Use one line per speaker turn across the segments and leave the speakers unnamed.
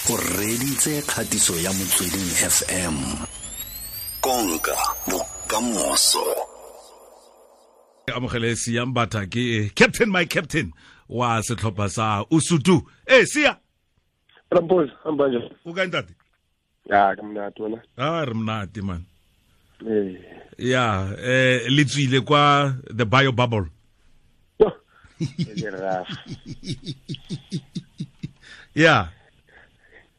O reditse kgatiso ya Motsweding FM. Konka bokamoso.
Amogele Siya Mbatha, ke captain, my captain wa setlhopha sa Usuthu. Eh, Siya.
Rampose, hamba njani?
O kae, ntate?
Ya, ke monate, wena?
Ah, re monate, man.
Eh.
Ya, le tswile kwa the bio bubble.
Yo, e le rough.
Ya.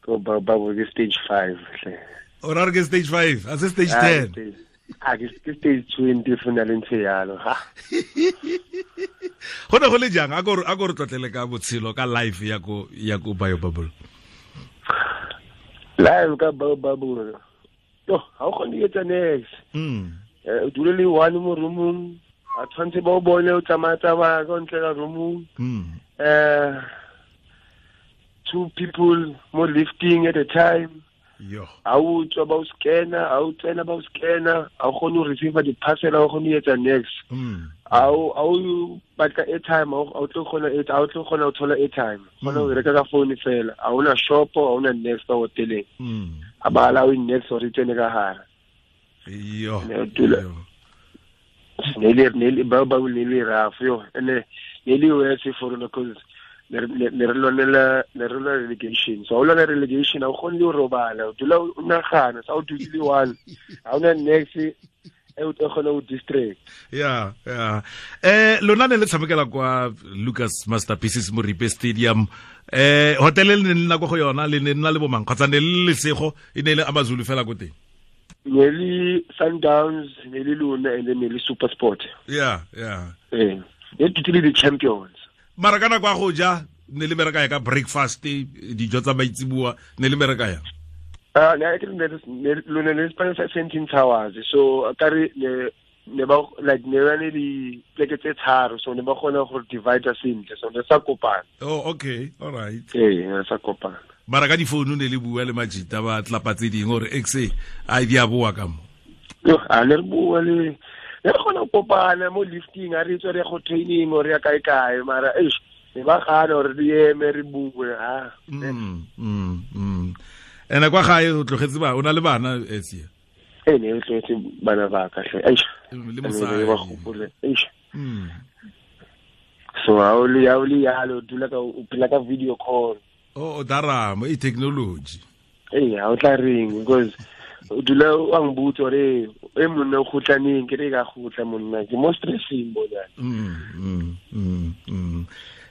Ko bio bubble ke stage 5 hle.
O ra re ke stage 5, a se stage 10?
Ah, ke stage 20 fo na le ntse yalo, ha.
Go ne go le jang? A ko re tlotlele ka botshelo, ka life ya ko bio bubble.
Life ka bio bubble. Yo, ha o kgone ho etsa niks. O dule le one mo roomong. A tshwanetse ba o bone o tsamaya tsamaya ka ntle ka roomong. Two people mo lifting at a time.
Yo.
Ha o tswa ba o scanner, ha o tsena ba o scanner, ha o kgone ho receive di-parcel, ha o kgone ho etsa niks. Ha o batla airtime, ha o tlo kgona, ha o tlo kgona ho thola airtime. Kgona ho reka ka phone fela. Ha hona shop, ha hona niks ka hoteleng. Ha ba allow niks hore e tsene ka hare.
Yo.
Ne o dula.
Yo.
Ne le ba ne le rough, yo. Ene ne le worse for rona because ne re lwanela relegation. So ha o lwana relegation, ha o kgone le ho robala, o dula o nagana sa o dutse le one, ha hona niks e o tlo kgona ho distract.
Ya, lona ne le tshamekela kwa Lucas Masterpieces Moripe Stadium. Hotel le ne le nna ko go yona, le ne nna le bomang, kgotsa ne le lesego, e ne le Amazulu fela ko teng?
Ne le Sundowns, ne le lona, and then ne le Super Sport.
Ya.
Eh, ne dutse le di-champions.
Mara ka nako ya go ja, ne le bereka ya ka breakfast, dijo tsa maitseboa, ne le bereka ya?
Ah, ne ke ne lona ne spane sa Sandton Towers, so ka re ne ba like ne ba ne di pleke tse tharo, so ne ba kgona go divide sentle, so ne sa kopana.
Oh, okay, all right.
Ee, ne sa kopana.
Mara ka difounu ne le bua le majita ba tlapa tse dingwe gore xa a di a boa ka mo?
Yo, a ne re bua le ne re kgona go kopana mo lifting, a re tswa re ya go training or ya kae kae, mara eish, ne ba gana gore re eme re bue, ha.
Ene kwa gae o tlogetse ba, o na le bana, Sia?
Ee, ne re tlogetse bana ba ka hle, eish.
Le
Ne
mosadi.
ba gopole, eish. So ha o le yalo, o dula ka o phela ka video call.
O daramo e technology.
Ee, ha o tla reng, because o dula o a ngibotsa gore e monna o kgotlaneng, ke re ka kgotla monna, ke mo stressing bona.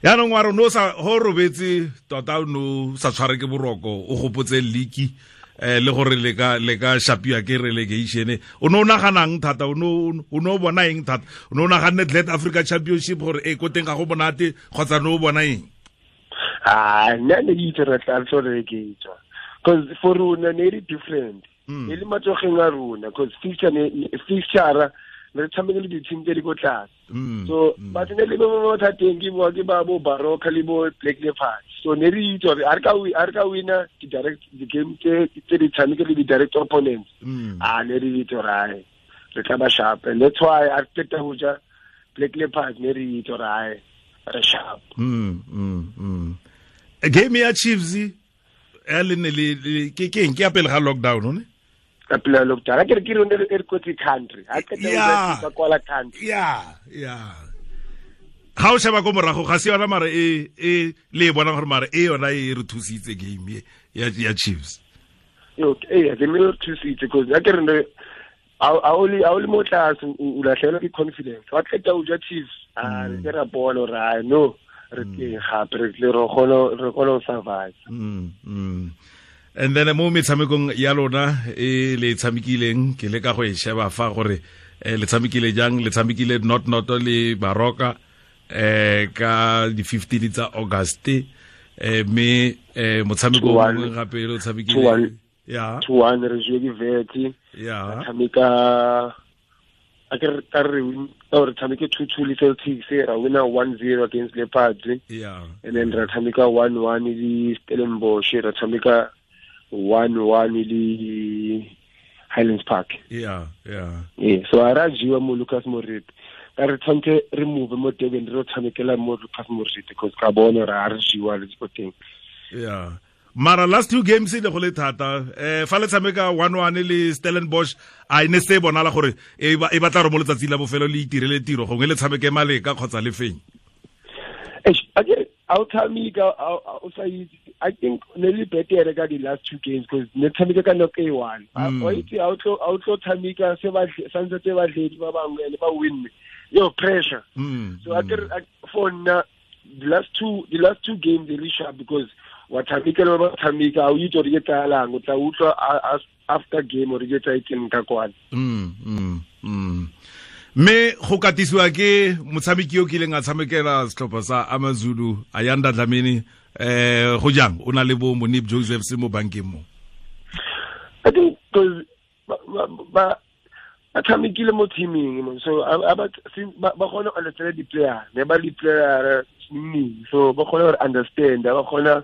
Yaanong wa re no sa go robetse tota, o no sa tshware ke boroko, o gopotse league le gore le ka shapiwa ke relegation, o ne o naganang thata? O ne o bona eng thata? O ne o naganne Glad Africa Championship gore e ko teng ga go monate, kgotsa ne o bona eng?
Ah, nna ne ke itse re tla re tlo relegate, because for rona ne e le different. E le matsogeng a rona, because fixture ne fixture ne re tshameke le di-team tse di ko tlase. So batho ne le mo mathateng ke ba bo Baroka le bo Black Leopards, so ne re itse gore a re ka wina di-direct di-game tse di tshameke le di-direct opponents. Ah, ne re itse gore ae, re tla ba sharp, and that's why a re qeta ho ja Black Leopards, ne re itse gore ae, re sharp.
Game ya Chiefs ya le ne le ke eng, ke ya pele ga lockdown, ne?
Ka pela lockdown, a ke re ke rone re kotsi country a qeta ho ja ba kwala country.
Ya, ga o sheba ko morago, ga se yona, mara e le e bonang gore mara e yona e re thusitse, game e ya Chiefs?
Yo, ee, ke me re thusitse, because a ke re ne ha o le mo tlase, o latlhegelwa ke confidence, wa qeta ho ja Chiefs, a re ke ra bona gore ai, no, re teng gape, re tle re kgone ho survive.
And then mo metshamekong ya lona e le tshamekileng, ke le ka go e sheba fa gore le tshamekile jang. Le tshamekile not not le Baroka ka di 15 tsa August, mme motshameko o
2-1.
mongwe gape le o tshamekile
2-1.
Ya.
2-1, re jewe ke Wits. Tshameka a ke re ka re win ka re tshameke 2-2 le Celtics, ra wina 1-0 against Leopards. And then ra tshameka 1-1 le Stellenbosch, ra tshameka 1-1 le Highlands Park.
Ya.
Ee, so a ra jewa mo Lucas Moripe, ka re tshwanetse re move mo Durban, re tshamekela mo Lucas Moripe, because ka bona re a re jewa le ko teng.
Ya. Mara last two games le go le thata, fa le tshameka 1-1 le Stellenbosch, a ene se bonala gore e batla re mo letsatsi la bofelo le itirele tiro, gongwe le tshameke maleka kgotsa le feng.
I'll tell me, I think nearly better ka the last two games because ne tshameka ka nako e one. Outlo tshameka se ba santse tse ba dledi ba bangwe le ba win. Yo pressure. So I for the last two games they really sharp because wa tshameka le ba tshameka o itse re tsalang o tla utlwa after game o re ke tsa itseng ka kwana.
Mme go katisiwa ke motshameki yo kileng a tshamekela setlhopha sa AmaZulu, Ayanda Dlamini, go jang o na le bo Monip Joseph se mo bankeng mo?
I think because ba tshamekile mo teaming, so ba kgona go understand di-player, ne ba di-player so ba kgona go understand, ba kgona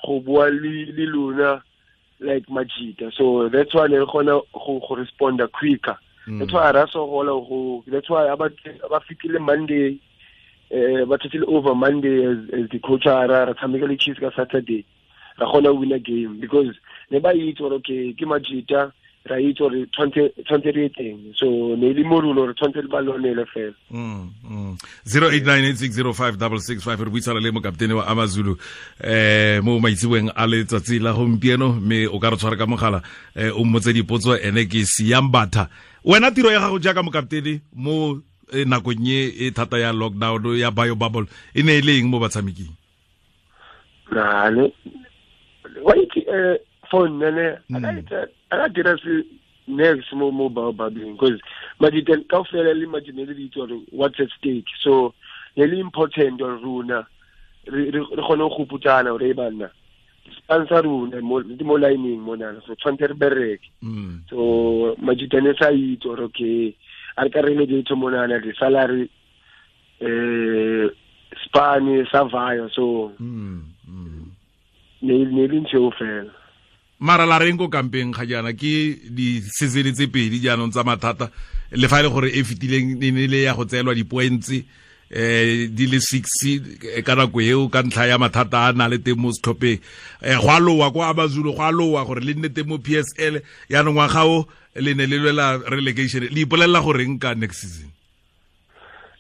go bua le lona like Majita, so that's why ne kgona go respond quicker. That's why that's why about Monday, but still over Monday as the coach ara tshameka Chiefs ka Saturday. Ra kgona win a game because ne ba itse gore okay ke Majita ra itse gore tshwantse re teng, so ne le morulo re tshwantse le ba lonele fela.
0898605665 re buisana le mokaptene wa AmaZulu mo maitseboeng a letsatsi la gompieno, mme o ka re tshwara ka mogala o mmotse dipotso. Ene ke Siyambatha. Wena tiro ya gago jaaka mokaptene mo nakong e thata ya lockdown ya bio bubble e ne e le eng mo batshameking?
Nale wa itse phone nene a dira se next mo mobile bubbling because majita kaofela le majita le ditse gore what's at stake, so le important gore rona re kgone go putsana gore banna sponsor rona mo mo lining mona, so tshwantse re bereke. So majita ne sa itse gore okay a re ka re le monana di salary spani survive, so ne le ntse fela.
Mara la reng ko kampeng ga jaana ke di season tse pedi jaanong tsa mathata, le fa e le gore e fetileng e ne le ya go tseelwa di-points di le 6 ka nako eo ka ntlha ya mathata a na le teng mo setlhopheng, go a lowa kwa AmaZulu, go a lowa gore le nne teng mo PSL, yaanong ngwaga o le ne le lwela relegation. Le ipolelela goreng ka next season?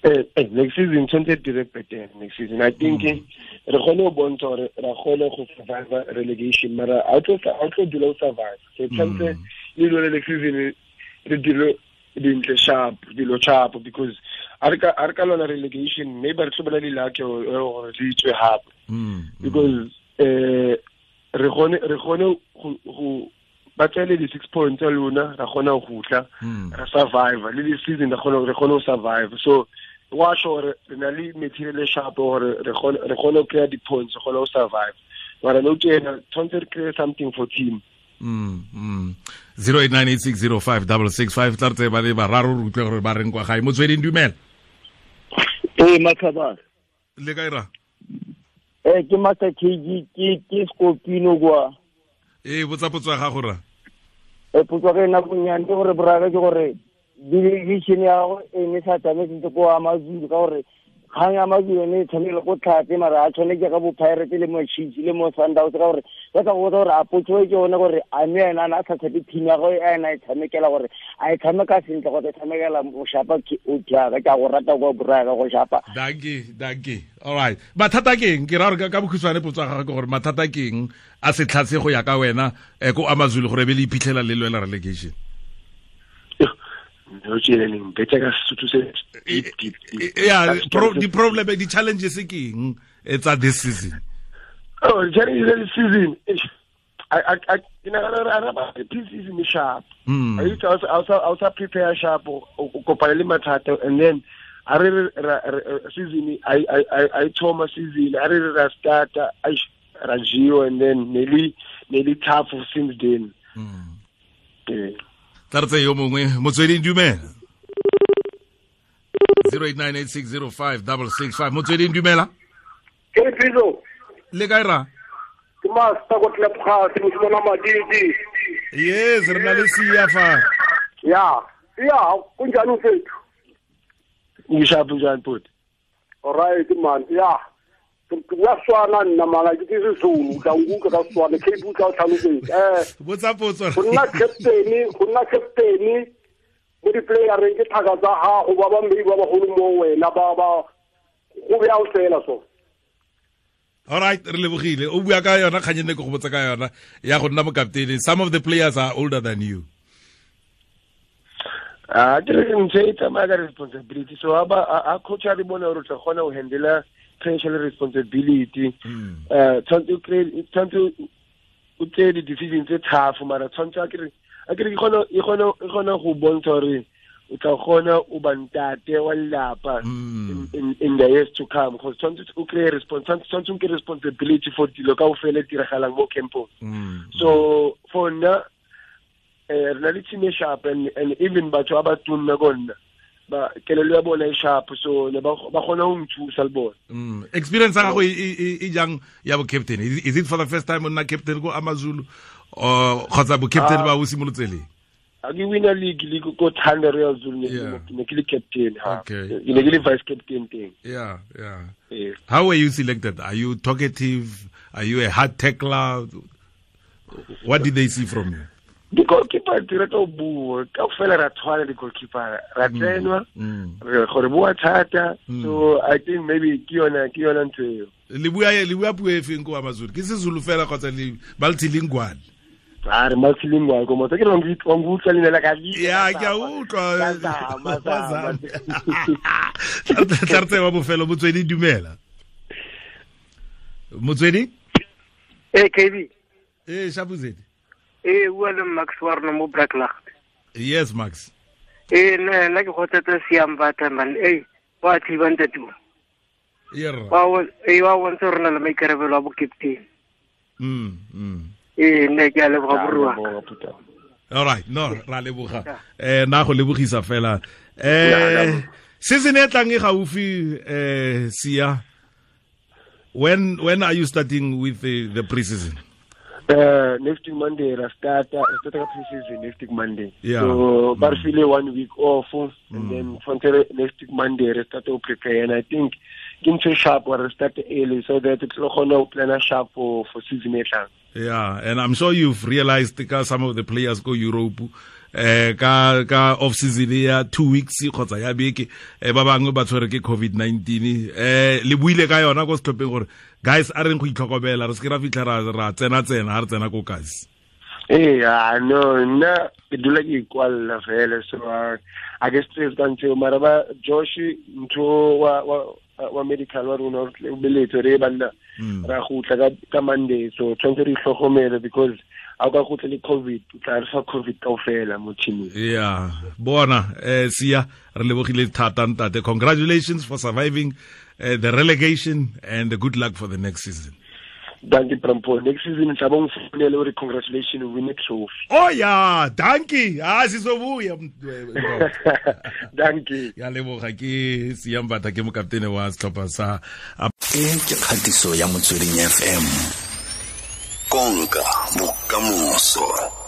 Next season tshwanetse dire better next season. I think re kgone go bontsha gore ra kgone go survive relegation, mara a tlo dula o survive, so tshwanetse le lwele next season re dire dintle sharp, dilo sharp, because a re ka lwana relegation maybe re tlo bona di-lucky gore re itswe hape, because re kgone go ba tsele di 6 points tsa lona, ra kgona go tla ra survive le this season, re kgone go survive. So wa sure re na le material sharp gore re kgone go kry di points, re kgone go survive, mara no tjena tshwanetse re kry something for team.
0898605665 tla re tse ba le bararo re utlwe gore ba reng kwa gae. Motsweding, dumela.
Matlhabane
le kae ra?
Ke Master KG, ke Skopino kwa.
Botsa potso ya gago ra.
Potso ke nna bonyane ke gore boraka ke gore delegation ya gago e ne sa tsamaye sentle ko AmaZulu, ka gore kgang ya AmaZulu yone e tshwanele go tlhatse, mara a tshwane ke ka bo Pirates le mo Chiefs le mo Sundowns, ka gore ba tla go botsa gore a potso e ke yone gore a mme ena a na a sa tshepe team ya gagwe e ena e tshamekela, gore a e tshameka sentle kgotsa e tshamekela go shapa o jaaka ke a go rata kwa boraka go shapa.
Dankie. All right. Mathata ke eng? Ke ra gore ka bokhutshwane potso ya gagwe ke gore mathata ke eng a se tlhatse go ya ka wena ko AmaZulu gore be le iphitlhela le lwela relegation? Yeah, di-problem, di-challenges ke eng tsa this season?
Oh, the challenges this season, I pre-season sharp. I used to also prepare sharp o kopana le mathata, and then I re season I thoma season I re ra start I Rajio, and then nearly tough since then.
Tla re tse yo mongwe. Motsweding, dumela. 0898605665 Motsweding, dumela.
Ke Bizo.
Le kae ra?
Ke master go tlepga se mosimana Madidi.
Yes, re na le Siya fa.
Ya, ya, kunjani mfethu?
Ngishapu njani bhuti?
All right man. Ya. Ke bua Setswana nna mara ke Sezulu, tla nkutlwa ka Setswana, ke bua o tlhalosetse.
Botsa potso.
Go nna captain mo di-playereng ke thaka tsa gago ba ba maybe ba bagolo mo wena ba go bjang fela so.
All right, re lebogile. O bua ka yona kganye ne ke go botsa ka yona ya go nna mokaptene. Some of the players are older than you.
Ke re ntse e tsamaya ka responsibility. So a coach a re bona gore o tla kgona go handle pressure le responsibility. Tshwanetse o tseye di-decision tse tough, mara tshwanetse a ke re e kgona go bontsha gore o tla kgona o ba ntate wa lelapa in the years to come, because tshwanetse o kry-e tshwanetse o nke responsibility for dilo kaofela e diragalang mo campong. So for nna re na le team e sharp, and even batho ba ba tunna ko nna ba kelelo ya bona e sharp, so ne ba kgona ho nthusa le bona.
Experience ya gago e jang ya bo captain? Is it for the first time o nna captain ko AmaZulu, or kgotsa bo captain ba o simolotse leng?
A ke wina league le ko Thanda Royal Zulu, ne ke le captain.
Okay.
Ke ne ke le vice captain teng.
Yeah. How were you selected? Are you talkative? Are you a hard tackler? What did they see from you?
Di-goalkeeper di rata ho bua kaofela, ra tshwana di-goalkeeper, ra tsenwa re gore bua thata. So I think maybe ke yona ntho eo.
Le bua puo e feng ko AmaZulu? Ke Sezulu fela kgotsa le multilingual?
A re multilingual ko motho ke re wa nkutlwa leina la ka.
Ya, ke a utlwa. Tla re tseye wa bofelo. Motswedi, dumela. Motswedi?
Ee, KB.
Ee, Shapuzedi.
Bua le Max wa rona mo Braklacht.
Yes, Max.
Nna ke kgothatsa Siya Mbatha man. Wa thiba ntate o. Wa bontsha gore na le maikarabelo a bo captain. Nne ke a leboga borua.
All right, no, ra leboga. Na go lebogisa fela. Season e tlang e gaufi, Siya. When are you starting with the pre-season?
Next week Monday, I start pre-season next week Monday.
Yeah.
So, but feel 1 week off, and then from next week Monday, I start to prepare. And I think into sharp or start early so that it's not plan sharp for season 8.
Yeah, and I'm sure you've realized because some of the players go Europe, ka off season ya 2 weeks kgotsa ya beke, ba bangwe ba tshwere ke COVID-19. Le buile ka yona ko setlhopheng gore guys a reng go itlhokomela, re se ke ra fitlha ra tsena ha re tsena ko kasi.
No, nna ke dula ke ikwalla fela, so I guess stress ka ntho mara ba Josh ntho wa medical wa rona o beletse re banna ra gutla ka Monday, so tshwanetse re itlhokomele because a ka gutla le COVID, o tla re fa COVID kaofela mo teaming.
Yeah, bona Siya, re lebogile thata ntate. Congratulations for surviving the relegation, and good luck for the next season.
Thank you, Prampo. Next season, congratulations, we win a trophy.
Oh yeah, thank you. Sizobuya.
Thank you.
Ya leboga ke Siya Mbatha ke mokaptene wa setlhopha sa
E ke kgatiso ya Motsweding FM. Konka bokamoso.